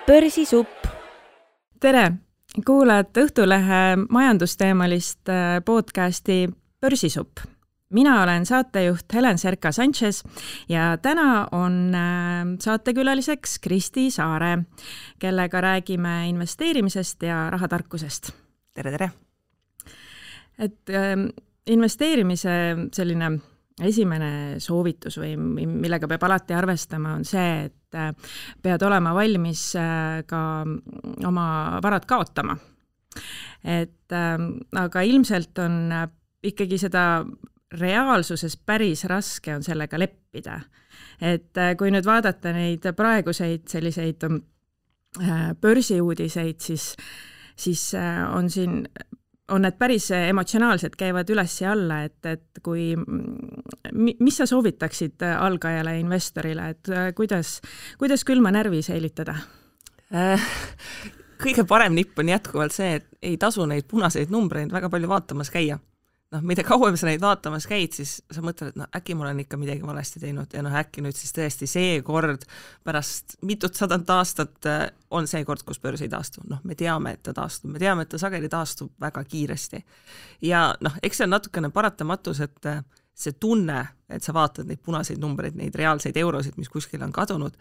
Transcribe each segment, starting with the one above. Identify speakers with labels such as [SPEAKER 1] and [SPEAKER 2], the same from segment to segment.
[SPEAKER 1] Börsisupp.
[SPEAKER 2] Tere! Kuulad Õhtulehe majandusteemalist podcasti Börsisupp. Mina olen saatejuht Helen Serka-Sanchez ja täna on saatekülaliseks Kristi Saare, kellega räägime investeerimisest ja rahatarkusest.
[SPEAKER 3] Tere!
[SPEAKER 2] Et investeerimise selline esimene soovitus või millega peab alati arvestama on see, et pead olema valmis ka oma varad kaotama. Aga ilmselt on ikkagi seda reaalsuses päris raske on sellega leppida. Et kui nüüd vaadata neid praeguseid selliseid börsiuudiseid, siis on need päris emotsionaalsed, käivad üles ja alla, et kui, mis sa soovitaksid algajale investorile, et kuidas külma närvi säilitada?
[SPEAKER 3] Kõige parem nipp on jätkuvalt see, et ei tasu neid punaseid numbreid väga palju vaatamas käia. Mida kauem sa neid vaatamas käid, siis sa mõtled, et äkki ma olen ikka midagi valesti teinud ja äkki nüüd siis tõesti see kord pärast mitut sadat aastat on see kord, kus börs ei taastu. Me teame, et ta taastub, me teame, et ta sageli taastub väga kiiresti. Ja eks see on natukene paratamatus, et see tunne, et sa vaatad neid punaseid numbreid, neid reaalseid eurosid, mis kuskil on kadunud,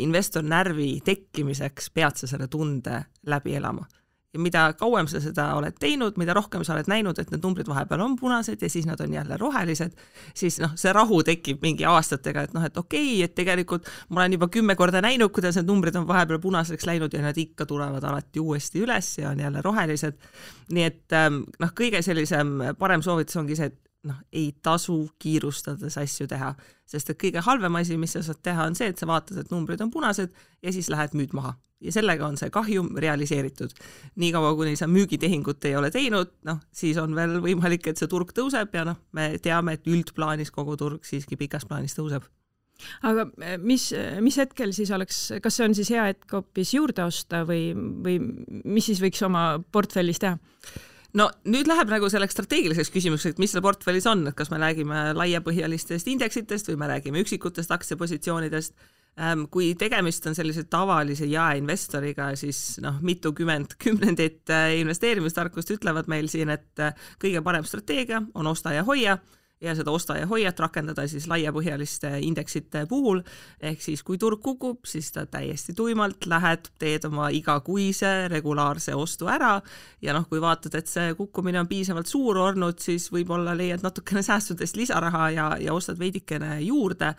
[SPEAKER 3] investor närvi tekkimiseks pead sa selle tunde läbi elama. Ja mida kauem sa seda oled teinud, mida rohkem sa oled näinud, et need numbrid vahepeal on punased ja siis nad on jälle rohelised, siis see rahu tekib mingi aastatega, et okei, et tegelikult ma olen juba 10 korda näinud, kuidas need numbrid on vahepeal punaseks läinud ja nad ikka tulevad alati uuesti üles ja on jälle rohelised. Nii et kõige sellisem parem soovitus ongi see, et ei tasu kiirustades asju teha, sest et kõige halvem asi, mis sa saad teha, on see, et sa vaatad, et numbrid on punased ja siis lähed müüd maha. Ja sellega on see kahjum realiseeritud. Nii kaua, kuni sa müügitehingut ei ole teinud, siis on veel võimalik, et see turg tõuseb ja me teame, et üldplaanis kogu turg siiski pikas plaanis tõuseb.
[SPEAKER 2] Aga mis hetkel siis oleks, kas see on siis hea hetk hoopis juurde osta või mis siis võiks oma portfellis teha?
[SPEAKER 3] Nüüd läheb selleks strateegiliseks küsimuseks, et mis selle portfellis on, et kas me räägime laiapõhjalistest indeksitest või me räägime üksikutest aktsiapositsioonidest. Kui tegemist on sellise tavalise jaeinvestoriga, siis mitukümmend kümnendit investeerimistarkust ütlevad meil siin, et kõige parem strateegia on osta ja hoia ja seda osta ja hoiat rakendada siis laiapõhjaliste indeksite puhul. Ehk siis kui turg kukub, siis ta täiesti tuimalt lähed, teed oma igakuise regulaarse ostu ära ja kui vaatad, et see kukkumine on piisavalt suur olnud, siis võib-olla leiad natukene säästudest lisaraha ja ostad veidikene juurde.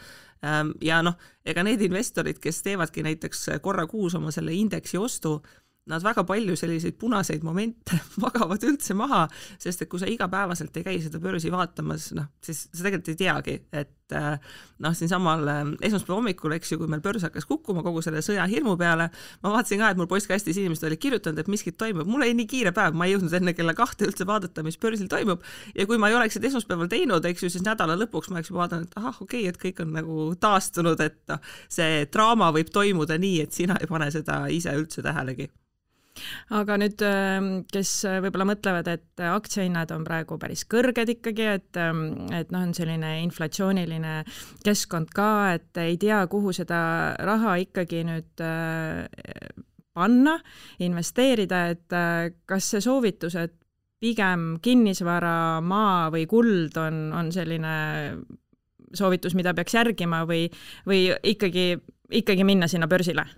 [SPEAKER 3] Ja ega need investorid, kes teevadki näiteks korra kuus oma selle indeksi ostu, nad väga palju selliseid punaseid momente magavad üldse maha, sest et kui sa igapäevaselt ei käi seda börsi vaatamas, siis sa tegelikult ei teagi, et siin samal esmaspäeva hommikul, kui meil börs hakkas kukkuma kogu selle sõja hirmu peale, ma vaatasin ka, et mul postkastis inimesed olid kirjutanud, et miskit toimub. Mul oli nii kiire päev, ma ei jõudnud enne kella 2 üldse vaadata, mis börsil toimub. Ja kui ma ei oleks esmaspäeval teinud, siis nädala lõpuks ma oleks juba vaadanud, et okei, et kõik on taastunud, et see draama võib toimuda nii, et sina ei pane seda ise üldse tähelegi.
[SPEAKER 2] Aga nüüd, kes võib-olla mõtlevad, et aktsiahinnad on praegu päris kõrged ikkagi, et on selline inflatsiooniline keskkond ka, et ei tea, kuhu seda raha ikkagi nüüd panna, investeerida, et kas see soovitus, et pigem kinnisvara, maa või kuld on selline soovitus, mida peaks järgima või ikkagi minna sinna börsile?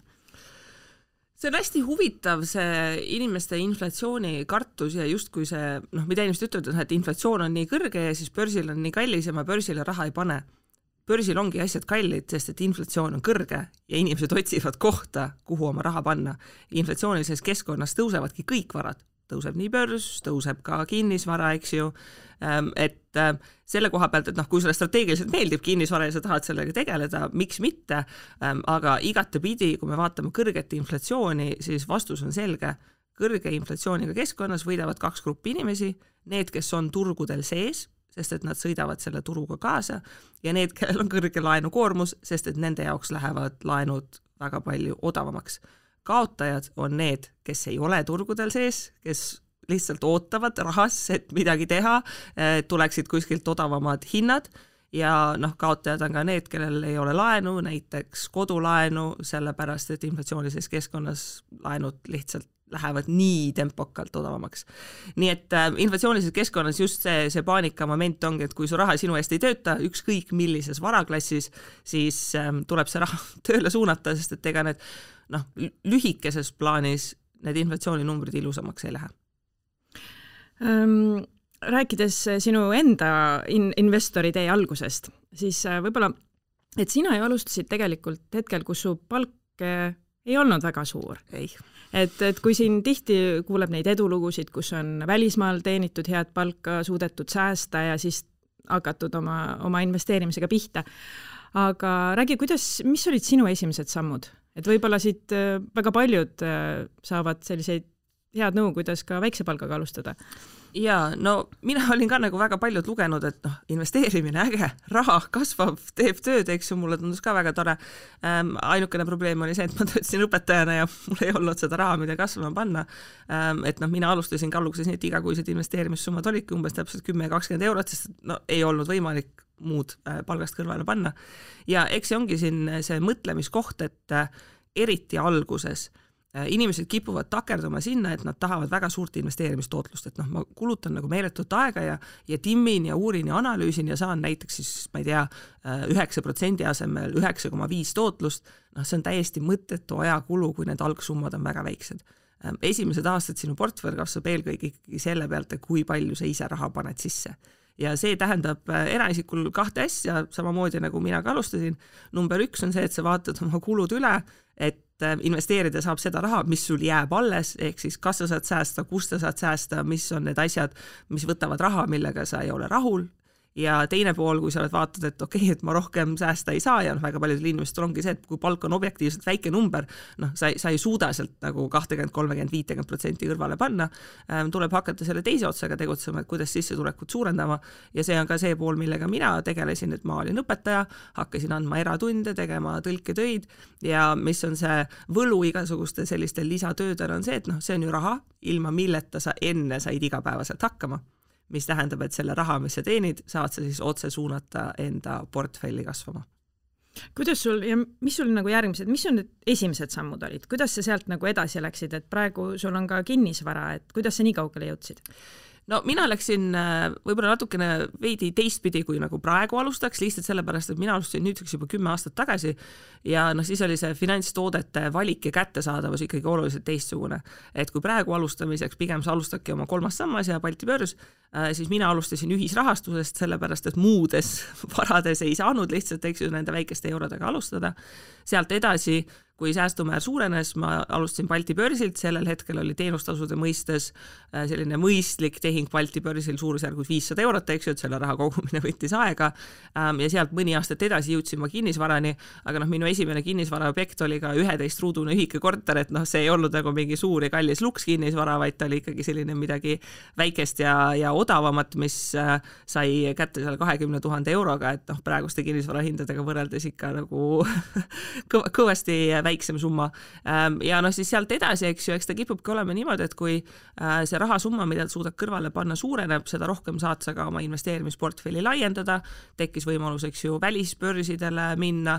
[SPEAKER 3] See on hästi huvitav, see inimeste inflatsiooni kartus ja justkui see, mida inimesed ütlevad, et inflatsioon on nii kõrge ja siis börsil on nii kallis ja ma börsile raha ei pane. Börsil ongi asjad kallid, sest et inflatsioon on kõrge ja inimesed otsivad kohta, kuhu oma raha panna. Inflatsioonilises keskkonnas tõusevadki kõik varad. Tõuseb nii börs, tõuseb ka kinnisvara, eks ju. Et selle koha pealt, et kui sulle strateegiliselt meeldib kinnisvara ja sa tahad sellega tegeleda, miks mitte, aga igatepidi, kui me vaatame kõrget inflatsiooni, siis vastus on selge. Kõrge inflatsiooniga keskkonnas võidavad 2 gruppi inimesi, need, kes on turgudel sees, sest et nad sõidavad selle turuga kaasa ja need, kellel on kõrge laenukoormus, sest et nende jaoks lähevad laenud väga palju odavamaks. Kaotajad on need, kes ei ole turgudel sees, kes lihtsalt ootavad rahas, et midagi teha, tuleksid kuskilt odavamad hinnad ja kaotajad on ka need, kellel ei ole laenu, näiteks kodulaenu, sellepärast et inflatsioonilises keskkonnas laenud lihtsalt lähevad nii tempokalt odavamaks. Nii et inflatsioonilises keskkonnas just see paanika moment ongi, et kui su raha sinu eest ei tööta, ükskõik millises varaklassis, siis tuleb see raha tööle suunata, sest et ega need lühikeses plaanis need inflatsiooninumbrid ilusamaks ei lähe.
[SPEAKER 2] Rääkides sinu enda investori tee algusest, siis võib-olla, et sina ju alustasid tegelikult hetkel, kus su palk ei olnud väga suur.
[SPEAKER 3] Ei.
[SPEAKER 2] Et kui siin tihti kuuleb neid edulugusid, kus on välismaal teenitud head palka, suudetud säästa ja siis hakatud oma investeerimisega pihta. Aga räägi, mis olid sinu esimesed sammud? Et võib-olla siit väga paljud saavad selliseid head nõu, kuidas ka väikse palgaga alustada.
[SPEAKER 3] Ja mina olin ka nagu väga paljud lugenud, et investeerimine äge, raha kasvab, teeb tööd, eks ju, mulle tundus ka väga tore. Ainukene probleem oli see, et ma töötasin õpetajana ja mul ei olnud seda raha, mida kasvama panna. Et mina alustasin ka alguses nii, et igakuised investeerimissummad olidki umbes täpselt 10-20 eurot, sest ei olnud võimalik muud palgast kõrvale panna. Ja eks see ongi siin see mõtlemiskoht, et eriti alguses inimesed kipuvad takerduma sinna, et nad tahavad väga suurt investeerimistootlust, et ma kulutan nagu meeletut aega ja timmin ja uurin ja analüüsin ja saan näiteks siis, ma ei tea, 9% asemel 9,5 tootlust, see on täiesti mõttetu ajakulu, kui need algsummad on väga väiksed. Esimesed aastad sinu portfell kasvab eelkõige ikkagi selle pealt, kui palju sa ise raha paned sisse. Ja see tähendab eraisikul 2 asja, samamoodi nagu mina ka alustasin. Number 1 on see, et sa vaatad oma kulud üle, et investeerida saab seda raha, mis sul jääb alles, ehk siis kas sa saad säästa, kus sa saad säästa, mis on need asjad, mis võtavad raha, millega sa ei ole rahul. Ja teine pool, kui sa oled vaatad, et okei, et ma rohkem säästa ei saa ja väga paljudel inimestel ongi see, et kui palk on objektiivselt väike number, sa ei suuda sealt nagu 20, 30, 50% kõrvale panna, tuleb hakata selle teise otsaga tegutsema, et kuidas sissetulekut suurendama ja see on ka see pool, millega mina tegelesin, et ma olin õpetaja, hakkasin andma eratunde, tegema tõlketöid ja mis on see võlu igasuguste selliste lisatöödel on see, et see on ju raha, ilma milleta sa enne said igapäevaselt hakkama. Mis tähendab, et selle raha, mis sa teenid, saad sa siis otse suunata enda portfelli kasvama.
[SPEAKER 2] Kuidas sul ja mis sul nagu järgmised, mis sul need esimesed sammud olid? Kuidas sa sealt nagu edasi läksid, et praegu sul on ka kinnisvara, et kuidas sa nii kaugele jõudsid?
[SPEAKER 3] Mina läksin võib-olla natukene veidi teistpidi, kui nagu praegu alustaks, lihtsalt sellepärast, et mina alustasin nüüdseks juba 10 aastat tagasi ja siis oli see finantstoodete valik ja kättesaadavus ikkagi oluliselt teistsugune. Et kui praegu alustamiseks pigem sa alustadki oma 3. sammas ja Balti börs, siis mina alustasin ühisrahastusest, sellepärast, et muudes varades ei saanud lihtsalt nende väikeste eurodega alustada. Sealt edasi, kui säästumäär suurenes, ma alustasin Balti börsilt, sellel hetkel oli teenustasude mõistes selline mõistlik tehing Balti börsil suurusjärgus 500 eurot, eks ju, et selle raha kogumine võttis aega ja sealt mõni aastat edasi jõudsin ma kinnisvarani, aga minu esimene kinnisvaraobjekt oli ka 11-ruudune ühike korter, et see ei olnud nagu mingi suur ja kallis luks kinnisvara, vaid ta oli ikkagi selline midagi väikest ja odavamat, mis sai kätte seal 20 000 euroga, et praeguste kinnisvarahindadega võrreldes ikka nagu kõvasti väiksem summa. Ja siis sealt edasi, eks ju, eks ta kipubki olema niimoodi, et kui see rahasumma, mida suudad kõrvale panna, suureneb, seda rohkem saad sa ka oma investeerimisportfelli laiendada, tekkis võimalus, eks ju, välisbörsidele minna,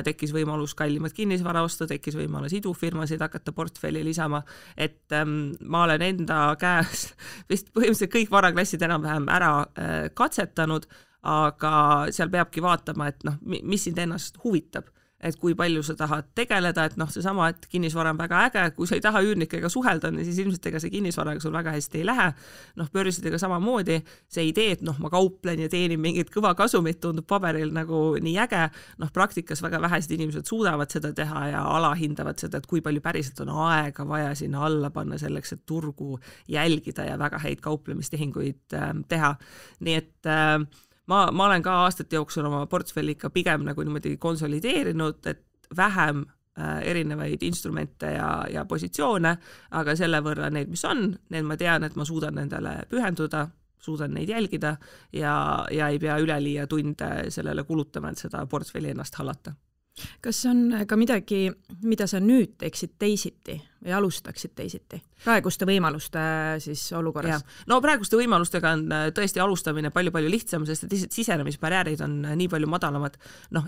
[SPEAKER 3] tekkis võimalus kallimat kinnisvara osta, tekkis võimalus idufirmasid hakata portfelli lisama, et ma olen enda käes vist põhimõtteliselt kõik varaklassid enam-vähem ära katsetanud, aga seal peabki vaatama, et mis sind ennast huvitab. Et kui palju sa tahad tegeleda, et seesama, et kinnisvara on väga äge, kui sa ei taha üürnikega suhelda, siis ilmselt ega see kinnisvaraga sul väga hästi ei lähe. Börsidega samamoodi, see idee, et ma kauplen ja teenin mingit kõva kasumit, tundub paberil nagu nii äge, praktikas väga vähesed inimesed suudavad seda teha ja alahindavad seda, et kui palju päriselt on aega vaja sinna alla panna selleks, et turgu jälgida ja väga häid kauplemistehinguid teha. Nii et ma olen ka aastate jooksul oma portfelli ikka pigem nagu niimoodi konsolideerinud, et vähem erinevaid instrumente ja positsioone, aga selle võrra need, mis on, need ma tean, et ma suudan nendele pühenduda, suudan neid jälgida ja ei pea üleliia tunde sellele kulutama, et seda portfelli ennast hallata.
[SPEAKER 2] Kas on ka midagi, mida sa nüüd teeksid teisiti või alustaksid teisiti? Praeguste võimaluste siis olukorras?
[SPEAKER 3] No praeguste võimalustega on tõesti alustamine palju-palju lihtsam, sest et lihtsalt sisenemisbarjäärid on nii palju madalamad.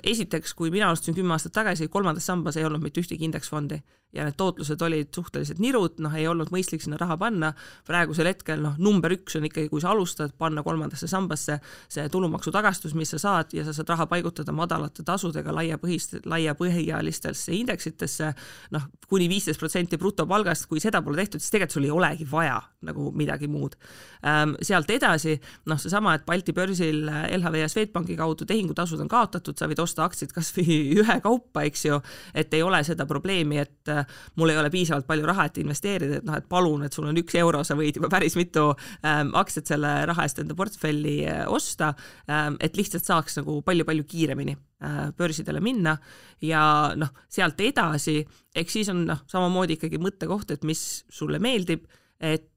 [SPEAKER 3] Esiteks, kui mina alustasin 10 aastat tagasi, 3. sambas ei olnud mitte ühtegi indeksfondi ja need tootlused olid suhteliselt nirud, ei olnud mõistlik sinna raha panna. Praegusel hetkel number 1 on ikkagi, kui sa alustad, panna 3. sambasse see tulumaksu tagastus, mis sa saad ja sa saad raha paigutada madalate tasudega laiapõhjalistesse indeksitesse, kuni 15% brutopalgast, kui seda pole tehtud, siis tegelikult sul ei olegi vaja nagu midagi muud. Sealt edasi, seesama, et Balti börsil LHV ja Swedbanki kaudu tehingutasud on kaotatud, sa võid osta aktsiid kas või ühe kaupa, eks ju, et ei ole seda probleemi, et mul ei ole piisavalt palju raha, et investeerida, et palun, et sul on 1 euro, sa võid juba päris mitu aktsiat selle raha eest enda portfelli osta, et lihtsalt saaks nagu palju-palju kiiremini börsidele minna ja sealt edasi, eks siis on samamoodi ikkagi mõttekoht, et mis sulle meeldib, et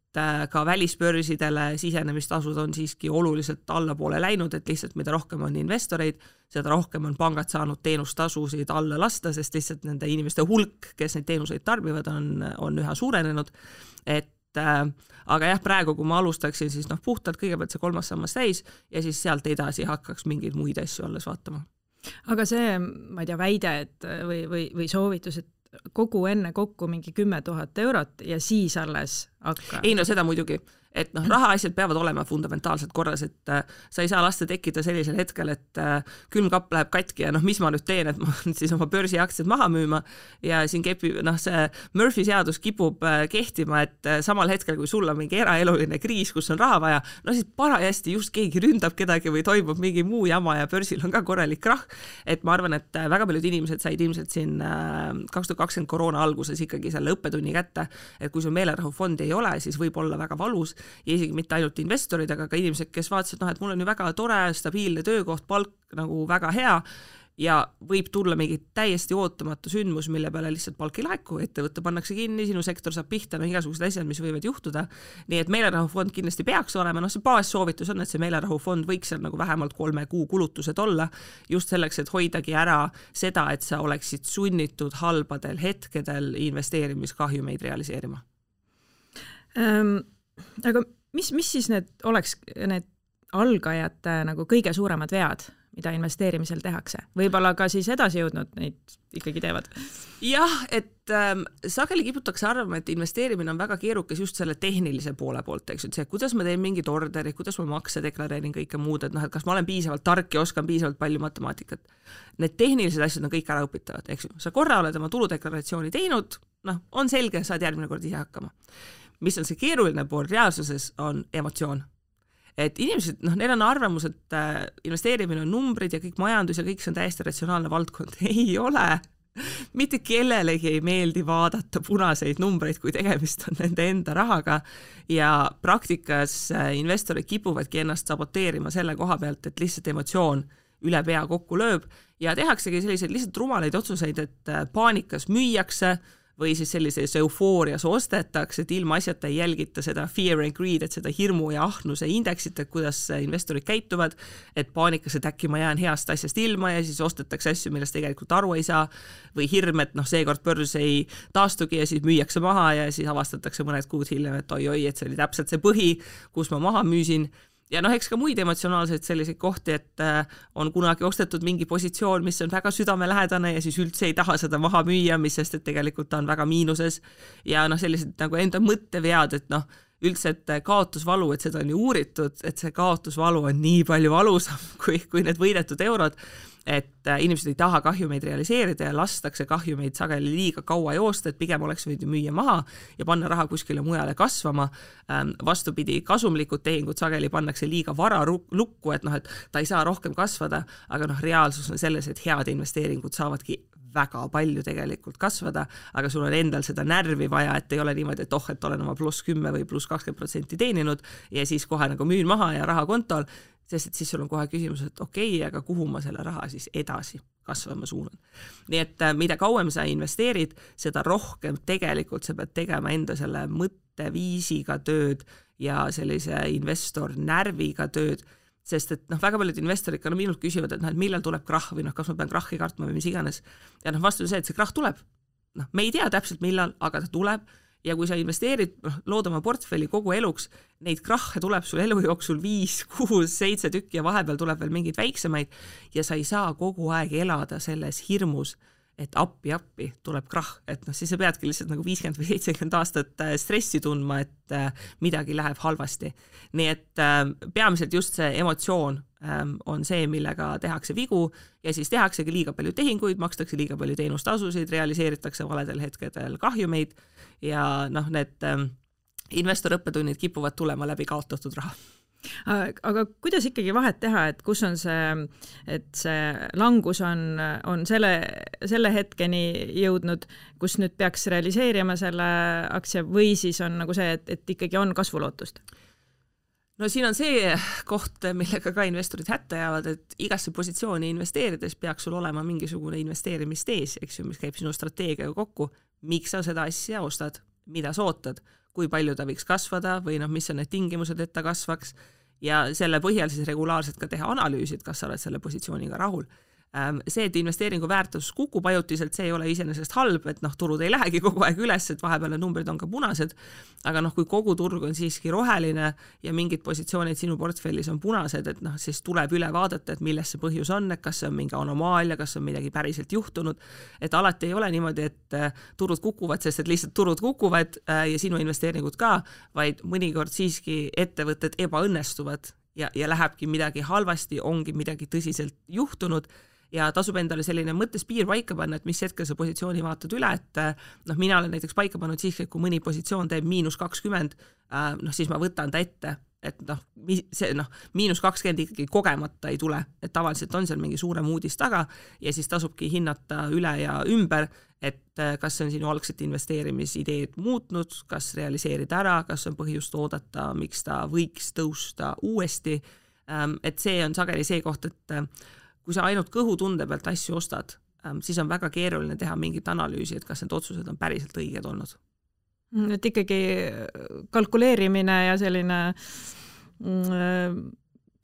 [SPEAKER 3] ka välisbörsidele sisenemistasud on siiski oluliselt allapoole läinud, et lihtsalt mida rohkem on investoreid, seda rohkem on pangad saanud teenustasusid alla lasta, sest lihtsalt nende inimeste hulk, kes neid teenuseid tarbivad, on üha suurenenud. Aga jah, praegu kui ma alustaksin, siis puhtalt kõigepealt see 3. sammas täis ja siis sealt edasi hakkaks mingeid muid asju alles vaatama.
[SPEAKER 2] Aga see, ma ei tea, väide et, või soovitus, et kogu enne kokku mingi 10 000 eurot ja siis alles hakka.
[SPEAKER 3] Ei, seda muidugi, et rahaasjad peavad olema fundamentaalselt korras, et sa ei saa lasta tekkida sellisel hetkel, et külmkapp läheb katki ja mis ma nüüd teen, et ma siis oma börsiaktsiad maha müüma ja siin see Murphy seadus kipub kehtima, et samal hetkel, kui sul on mingi eraeluline kriis, kus on raha vaja, siis parajasti just keegi ründab kedagi või toimub mingi muu jama ja börsil on ka korralik krahh, et ma arvan, et väga paljud inimesed said ilmselt siin 2020 koroona alguses ikkagi selle õppetunni kätte, et kui sul meelerahufondi ei ole, siis võib olla väga valus ja isegi mitte ainult investorid, aga ka inimesed, kes vaatasid, et mul on ju väga tore, stabiilne töökoht, palk nagu väga hea ja võib tulla mingi täiesti ootamatu sündmus, mille peale lihtsalt palk ei laeku, ettevõtte pannakse kinni, sinu sektor saab pihta, igasugused asjad, mis võivad juhtuda. Nii et meelerahufond kindlasti peaks olema, see baassoovitus on, et see meelerahufond võiks seal nagu vähemalt 3 kuu kulutused olla, just selleks, et hoidagi ära seda, et sa oleksid sunnitud halbadel hetkedel investeerimiskahjumeid realiseerima.
[SPEAKER 2] Aga mis siis oleks need algajate nagu kõige suuremad vead, mida investeerimisel tehakse? Võib-olla ka siis edasi jõudnud neid ikkagi teevad?
[SPEAKER 3] Jah, et sageli kiputakse arvama, et investeerimine on väga keerukas just selle tehnilise poole poolt, eks, et see, kuidas ma teen mingid orderid, kuidas ma makse deklareerin kõike muud, et kas ma olen piisavalt tark ja oskan piisavalt palju matemaatikat. Need tehnilised asjad on kõik ära õpitavad, eks. Sa korra oled oma tuludeklaratsiooni teinud, on selge, saad järgmine kord ise hakkama. Mis on see keeruline pool reaalsuses, on emotsioon. Et inimesed, neil on arvamus, et investeerimine on numbrid ja kõik majandus ja kõik see on täiesti ratsionaalne valdkond. Ei ole. Mitte kellelegi ei meeldi vaadata punaseid numbreid, kui tegemist on nende enda rahaga ja praktikas investorid kipuvadki ennast saboteerima selle koha pealt, et lihtsalt emotsioon üle pea kokku lööb ja tehaksegi selliseid lihtsalt rumalaid otsuseid, et paanikas müüakse või siis sellises eufoorias ostetakse, et ilma asjata ei jälgita seda fear and greed, et seda hirmu ja ahnuse indeksit, et kuidas investorid käituvad, et paanikas, et äkki ma jään heast asjast ilma ja siis ostetakse asju, millest tegelikult aru ei saa, või hirm, et seekord börs ei taastugi ja siis müüakse maha ja siis avastatakse mõned kuud hiljem, et oi, et see oli täpselt see põhi, kus ma maha müüsin. Ja eks ka muid emotsionaalseid selliseid kohti, et on kunagi ostetud mingi positsioon, mis on väga südamelähedane ja siis üldse ei taha seda maha müüa, mis sest, et tegelikult ta on väga miinuses ja sellised nagu enda mõttevead, et üldse, et kaotusvalu, et seda on ju uuritud, et see kaotusvalu on nii palju valusam kui need võidetud eurod, et inimesed ei taha kahjumeid realiseerida ja lastakse kahjumeid sageli liiga kaua joosta, et pigem oleks võinud müüa maha ja panna raha kuskile mujale kasvama. Vastupidi, kasumlikud tehingud sageli pannakse liiga vara lukku, et ta ei saa rohkem kasvada, aga reaalsus on selles, et head investeeringud saavadki väga palju tegelikult kasvada, aga sul on endal seda närvi vaja, et ei ole niimoodi, et olen oma +10 või +20% teeninud ja siis kohe nagu müün maha ja raha kontol, sest et siis sul on kohe küsimus, et okei, aga kuhu ma selle raha siis edasi kasvama suunan. Nii et mida kauem sa investeerid, seda rohkem tegelikult sa pead tegema enda selle mõtteviisiga tööd ja sellise investor närviga tööd, sest et väga paljud investorid ka minult küsivad, et millal tuleb krahh või kas ma pean krahhi kartma või mis iganes. Ja vastus on see, et see krahh tuleb. me ei tea täpselt millal, aga ta tuleb ja kui sa investeerid, lood oma portfelli kogu eluks, neid krahhe tuleb sul elu jooksul 5, 6, 7 tükki ja vahepeal tuleb veel mingeid väiksemaid ja sa ei saa kogu aeg elada selles hirmus, et appi tuleb krahh, et siis sa peadki lihtsalt nagu 50 või 70 aastat stressi tundma, et midagi läheb halvasti. Nii et peamiselt just see emotsioon on see, millega tehakse vigu ja siis tehaksegi liiga palju tehinguid, makstakse liiga palju teenustasusid, realiseeritakse valedel hetkedel kahjumeid ja need investorõppetunnid kipuvad tulema läbi kaotatud raha.
[SPEAKER 2] Aga kuidas ikkagi vahet teha, et kus on et see langus on selle hetkeni jõudnud, kus nüüd peaks realiseerima selle aktsia või siis on nagu see, et ikkagi on kasvulootust?
[SPEAKER 3] No siin on see koht, millega ka investorid hätta jäävad, et igasse positsiooni investeerides peaks sul olema mingisugune investeerimistees, eks ju, mis käib sinu strateegiaga kokku, miks sa seda asja ostad, mida sa ootad, kui palju ta võiks kasvada või mis on need tingimused, et ta kasvaks ja selle põhjal siis regulaarselt ka teha analüüsid, kas sa oled selle positsiooniga rahul. See, et investeeringu väärtus kukub ajutiselt, see ei ole iseenesest halb, et turud ei lähegi kogu aeg üles, et vahepeal numbrid on ka punased, aga kui kogu turg on siiski roheline ja mingid positsioonid sinu portfellis on punased, et siis tuleb üle vaadata, et milles see põhjus on, et kas see on mingi anomaalia, kas on midagi päriselt juhtunud, et alati ei ole niimoodi, et turud kukuvad, sest et lihtsalt turud kukuvad ja sinu investeeringud ka, vaid mõnikord siiski ettevõtted ebaõnnestuvad ja lähebki midagi halvasti, ongi midagi tõsiselt juhtunud ja tasub endale selline mõttes piir paika panna, et mis hetkel sa positsiooni vaatad üle, et mina olen näiteks paika pannud siis, kui mõni positsioon teeb -20, siis ma võtan ta ette, et see -20 ikkagi kogemata ei tule, et tavaliselt on seal mingi suurem uudis taga ja siis tasubki hinnata üle ja ümber, et kas on sinu algset investeerimisideed muutnud, kas realiseerida ära, kas on põhjust oodata, miks ta võiks tõusta uuesti, et see on sageli see koht, et kui sa ainult kõhutunde pealt asju ostad, siis on väga keeruline teha mingit analüüsi, et kas need otsused on päriselt õiged olnud.
[SPEAKER 2] Et ikkagi kalkuleerimine ja selline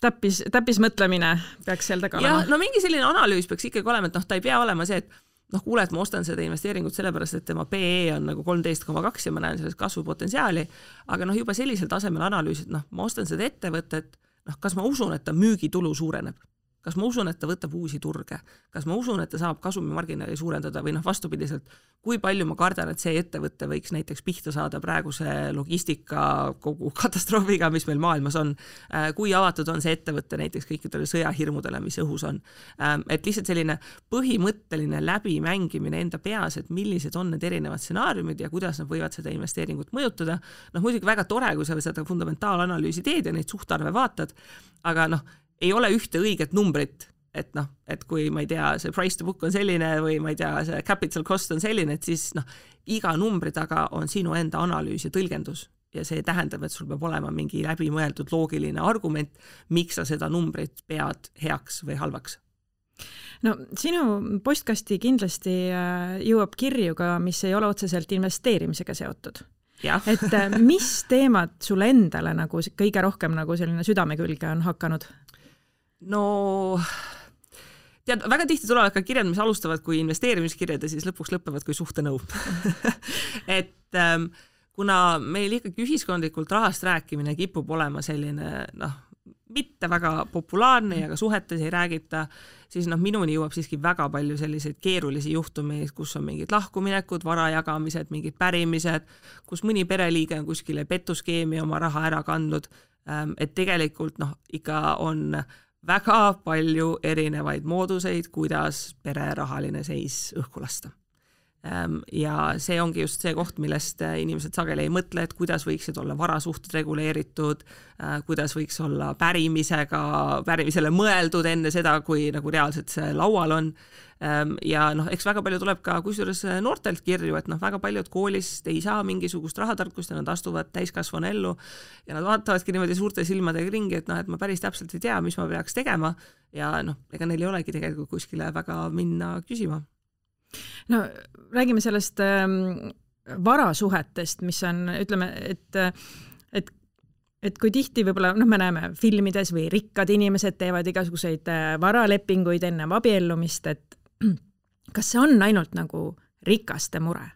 [SPEAKER 2] täppismõtlemine peaks seal taga olema.
[SPEAKER 3] Ja mingi selline analüüs peaks ikkagi olema, et ta ei pea olema see, et kuule, et ma ostan seda investeeringut sellepärast, et tema PE on 13,2 ja ma näen sellest kasvupotentsiaali, aga juba sellisel tasemel analüüs, et ma ostan seda ettevõtet, kas ma usun, et ta müügitulu suureneb? Kas ma usun, et ta võtab uusi turge? Kas ma usun, et ta saab kasumimarginaali suurendada või vastupidiselt, kui palju ma kardan, et see ettevõte võiks näiteks pihta saada praeguse logistika kogu katastroofiga, mis meil maailmas on, kui avatud on see ettevõte näiteks kõikidele sõjahirmudele, mis õhus on. Et lihtsalt selline põhimõtteline läbimängimine enda peas, et millised on need erinevad stsenaariumid ja kuidas nad võivad seda investeeringut mõjutada. Muidugi väga tore, kui sa seda fundamentaalanalüüsi teed ja neid suhtarve vaatad, aga ei ole ühte õiget numbrit, et kui ma ei tea, see price to book on selline või ma ei tea, see capital cost on selline, et siis iga numbri taga on sinu enda analüüs ja tõlgendus ja see tähendab, et sul peab olema mingi läbimõeldud loogiline argument, miks sa seda numbrit pead heaks või halvaks.
[SPEAKER 2] Sinu postkasti kindlasti jõuab kirju ka, mis ei ole otseselt investeerimisega seotud. Et mis teemad sulle endale kõige rohkem selline südame külge on hakanud?
[SPEAKER 3] Tead, väga tihti tulevad ka kirjad, mis alustavad kui investeerimiskirjad ja siis lõpuks lõpevad kui suhtenõu. Et kuna meil ikkagi ühiskondlikult rahast rääkimine kipub olema selline, mitte väga populaarne ja ka suhetes ei räägita, siis minuni jõuab siiski väga palju selliseid keerulisi juhtumeid, kus on mingid lahkuminekud, varajagamised, mingid pärimised, kus mõni pereliige on kuskile petuskeemi oma raha ära kandnud, et tegelikult ikka on väga palju erinevaid mooduseid, kuidas pere rahaline seis õhku lasta. Ja see ongi just see koht, millest inimesed sageli ei mõtle, et kuidas võiksid olla varasuhted reguleeritud, kuidas võiks olla pärimisele mõeldud enne seda, kui reaalselt see laual on. Ja eks väga palju tuleb ka kusjuures noortelt kirju, et väga paljud koolist ei saa mingisugust rahatarkust ja nad astuvad täiskasvanu ellu ja nad vaatavadki niimoodi suurte silmadega ringi, et ma päris täpselt ei tea, mis ma peaks tegema ja ega neil ei olegi tegelikult kuskile väga minna küsima.
[SPEAKER 2] Räägime sellest varasuhetest, mis on, ütleme, et kui tihti võib-olla, me näeme filmides või rikkad inimesed teevad igasuguseid varalepinguid enne abiellumist, et kas see on ainult rikaste mure?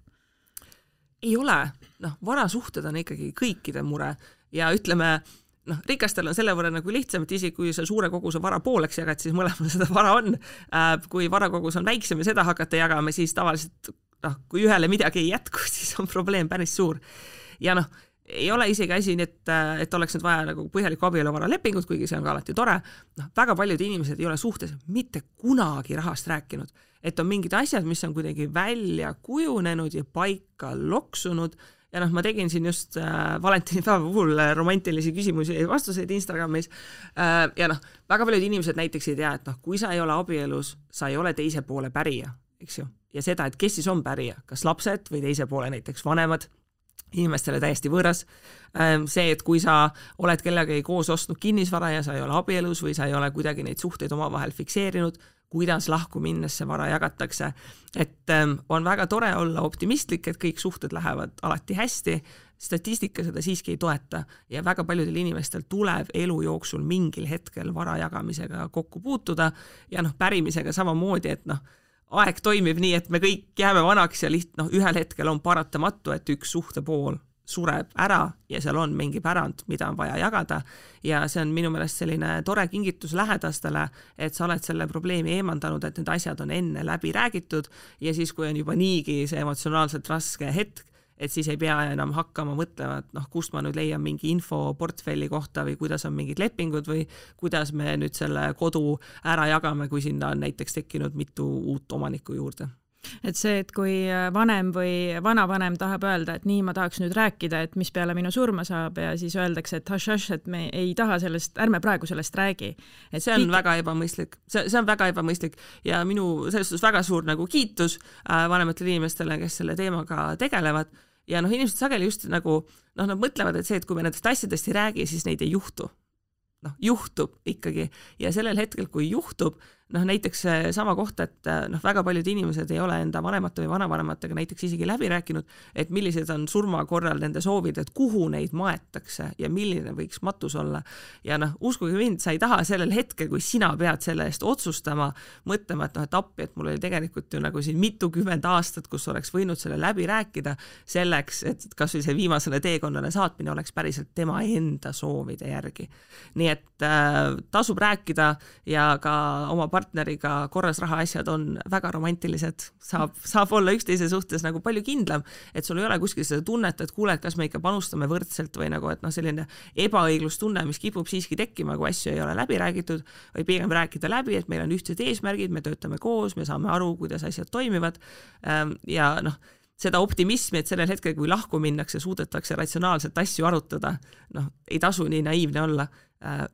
[SPEAKER 3] Ei ole, varasuhted on ikkagi kõikide mure ja ütleme, rikastel on selle võrra nagu lihtsam, et isegi kui sa suure koguse vara pooleks jagad, siis mõlemal seda vara on. Kui varakogus on väiksem ja seda hakata jagama, siis tavaliselt, kui ühele midagi ei jätku, siis on probleem päris suur. Ja ei ole isegi asi, et oleks nüüd vaja nagu põhjalikku abieluvara lepingut, kuigi see on ka alati tore. Väga paljud inimesed ei ole suhtes mitte kunagi rahast rääkinud, et on mingid asjad, mis on kuidagi välja kujunenud ja paika loksunud. Ja ma tegin siin just valentinipäeva puhul romantilisi küsimusi ja vastuseid Instagramis. Ja väga paljud inimesed näiteks ei tea, et kui sa ei ole abielus, sa ei ole teise poole pärija, eks ju. Ja seda, et kes siis on pärija, kas lapsed või teise poole näiteks vanemad, inimestele täiesti võõras. See, et kui sa oled kellegagi koos ostnud kinnisvara ja sa ei ole abielus või sa ei ole kuidagi neid suhteid omavahel fikseerinud, kuidas lahku minnes see vara jagatakse. Et on väga tore olla optimistlik, et kõik suhted lähevad alati hästi, statistika seda siiski ei toeta ja väga paljudel inimestel tuleb elu jooksul mingil hetkel vara jagamisega kokku puutuda ja pärimisega samamoodi, et aeg toimib nii, et me kõik jääme vanaks ja ühel hetkel on paratamatu, et üks suhtepool sureb ära ja seal on mingi pärand, mida on vaja jagada ja see on minu meelest selline tore kingitus lähedastele, et sa oled selle probleemi eemandanud, et need asjad on enne läbi räägitud ja siis, kui on juba niigi see emotsionaalselt raske hetk, et siis ei pea enam hakkama mõtlema, et kust ma nüüd leian mingi info portfelli kohta või kuidas on mingid lepingud või kuidas me nüüd selle kodu ära jagame, kui sinna on näiteks tekkinud mitu uut omanikku juurde.
[SPEAKER 2] Et see, et kui vanem või vanavanem tahab öelda, et nii ma tahaks nüüd rääkida, et mis peale minu surma saab ja siis öeldakse, et haš, et me ei taha sellest, ärme praegu sellest räägi. Et
[SPEAKER 3] see on väga ebamõistlik. See on väga ebamõistlik ja minu selles suhtes väga suur nagu kiitus vanematele inimestele, kes selle teemaga tegelevad. Ja inimesed sageli just nagu, nad mõtlevad, et see, et kui me nendest asjadest ei räägi, siis neid ei juhtu. Juhtub ikkagi ja sellel hetkel, kui juhtub, näiteks sama kohta, et väga paljud inimesed ei ole enda vanemate või vanavanematega näiteks isegi läbi rääkinud, et millised on surma korral nende soovid, et kuhu neid maetakse ja milline võiks matus olla. Ja uskuge mind, sa ei taha sellel hetkel, kui sina pead selle eest otsustama, mõtlema, et appi, et mul oli tegelikult ju nagu siin mitukümmend aastat, kus oleks võinud selle läbi rääkida selleks, et kas või see viimasele teekonnale saatmine oleks päriselt tema enda soovide järgi. Nii et tasub rääkida ja ka oma partneriga korras rahaasjad on väga romantilised, saab olla üksteise suhtes nagu palju kindlam, et sul ei ole kuskil seda tunnet, et kuule, et kas me ikka panustame võrdselt või nagu, et selline ebaõiglustunne, mis kipub siiski tekkima, kui asju ei ole läbi räägitud, või pigem rääkida läbi, et meil on ühtsed eesmärgid, me töötame koos, me saame aru, kuidas asjad toimivad ja seda optimismi, et sellel hetkel, kui lahku minnakse, suudetakse ratsionaalselt asju arutada, ei tasu nii naiivne olla.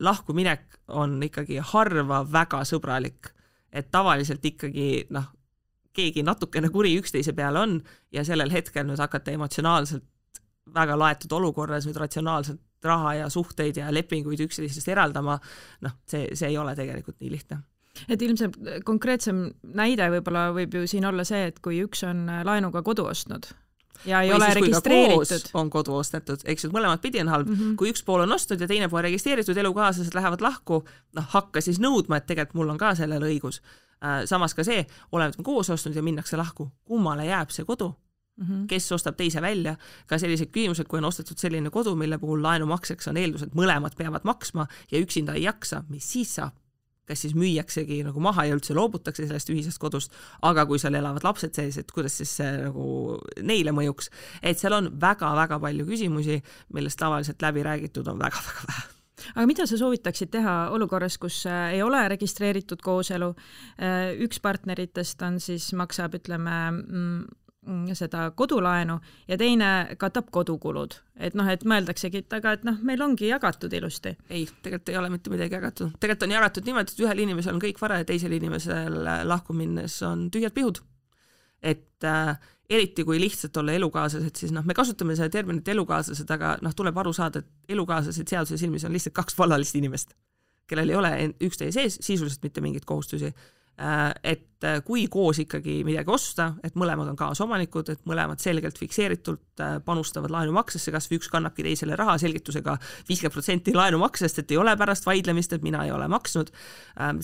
[SPEAKER 3] Lahku minek on ikkagi harva väga sõbralik, et tavaliselt ikkagi keegi natukene kuri üksteise peale on ja sellel hetkel nüüd hakata emotsionaalselt väga laetud olukorras nüüd ratsionaalselt raha ja suhteid ja lepinguid üksteisest eraldama, see ei ole tegelikult nii lihtne.
[SPEAKER 2] Et ilmselt konkreetsem näide võib-olla võib ju siin olla see, et kui üks on laenuga kodu ostnud ja ei ole registreeritud.
[SPEAKER 3] On kodu ostetud, eks ju, mõlemad pidi on halb. Kui üks pool on ostnud ja teine pool registreeritud, elukaaslased lähevad lahku, hakka siis nõudma, et tegelikult mul on ka sellele õigus. Samas ka see, oleme koos ostnud ja minnakse lahku, kummale jääb see kodu, kes ostab teise välja. Ka sellised küsimused, kui on ostetud selline kodu, mille puhul laenumakseks on eeldus, et mõlemad peavad maksma ja üksinda ei jaksa, mis siis saab? Kas siis müüaksegi nagu maha ja üldse loobutakse sellest ühisest kodust, aga kui seal elavad lapsed sees, et kuidas siis see nagu neile mõjuks, et seal on väga-väga palju küsimusi, millest tavaliselt läbi räägitud on väga-väga vähe.
[SPEAKER 2] Aga mida sa soovitaksid teha olukorras, kus ei ole registreeritud kooselu, üks partneritest on siis maksab, ütleme, seda kodulaenu ja teine katab kodukulud. Et mõeldaksegi, et meil ongi jagatud ilusti.
[SPEAKER 3] Ei, tegelikult ei ole mitte midagi jagatud. Tegelikult on jagatud niimoodi, et ühel inimesel on kõik vara ja teisel inimesel lahku minnes on tühjad pihud. Et eriti kui lihtsalt olla elukaaslased, siis me kasutame seda terminit elukaaslased, aga tuleb aru saada, et elukaaslased seaduse silmis on lihtsalt kaks vallalist inimest, kellel ei ole üksteise sees sisuliselt mitte mingeid kohustusi. et kui koos ikkagi midagi osta, et mõlemad on kaasomanikud, et mõlemad selgelt fikseeritult panustavad laenumaksesse, kas või üks kannabki teisele raha selgitusega 50% laenumaksest, et ei ole pärast vaidlemist, et mina ei ole maksnud.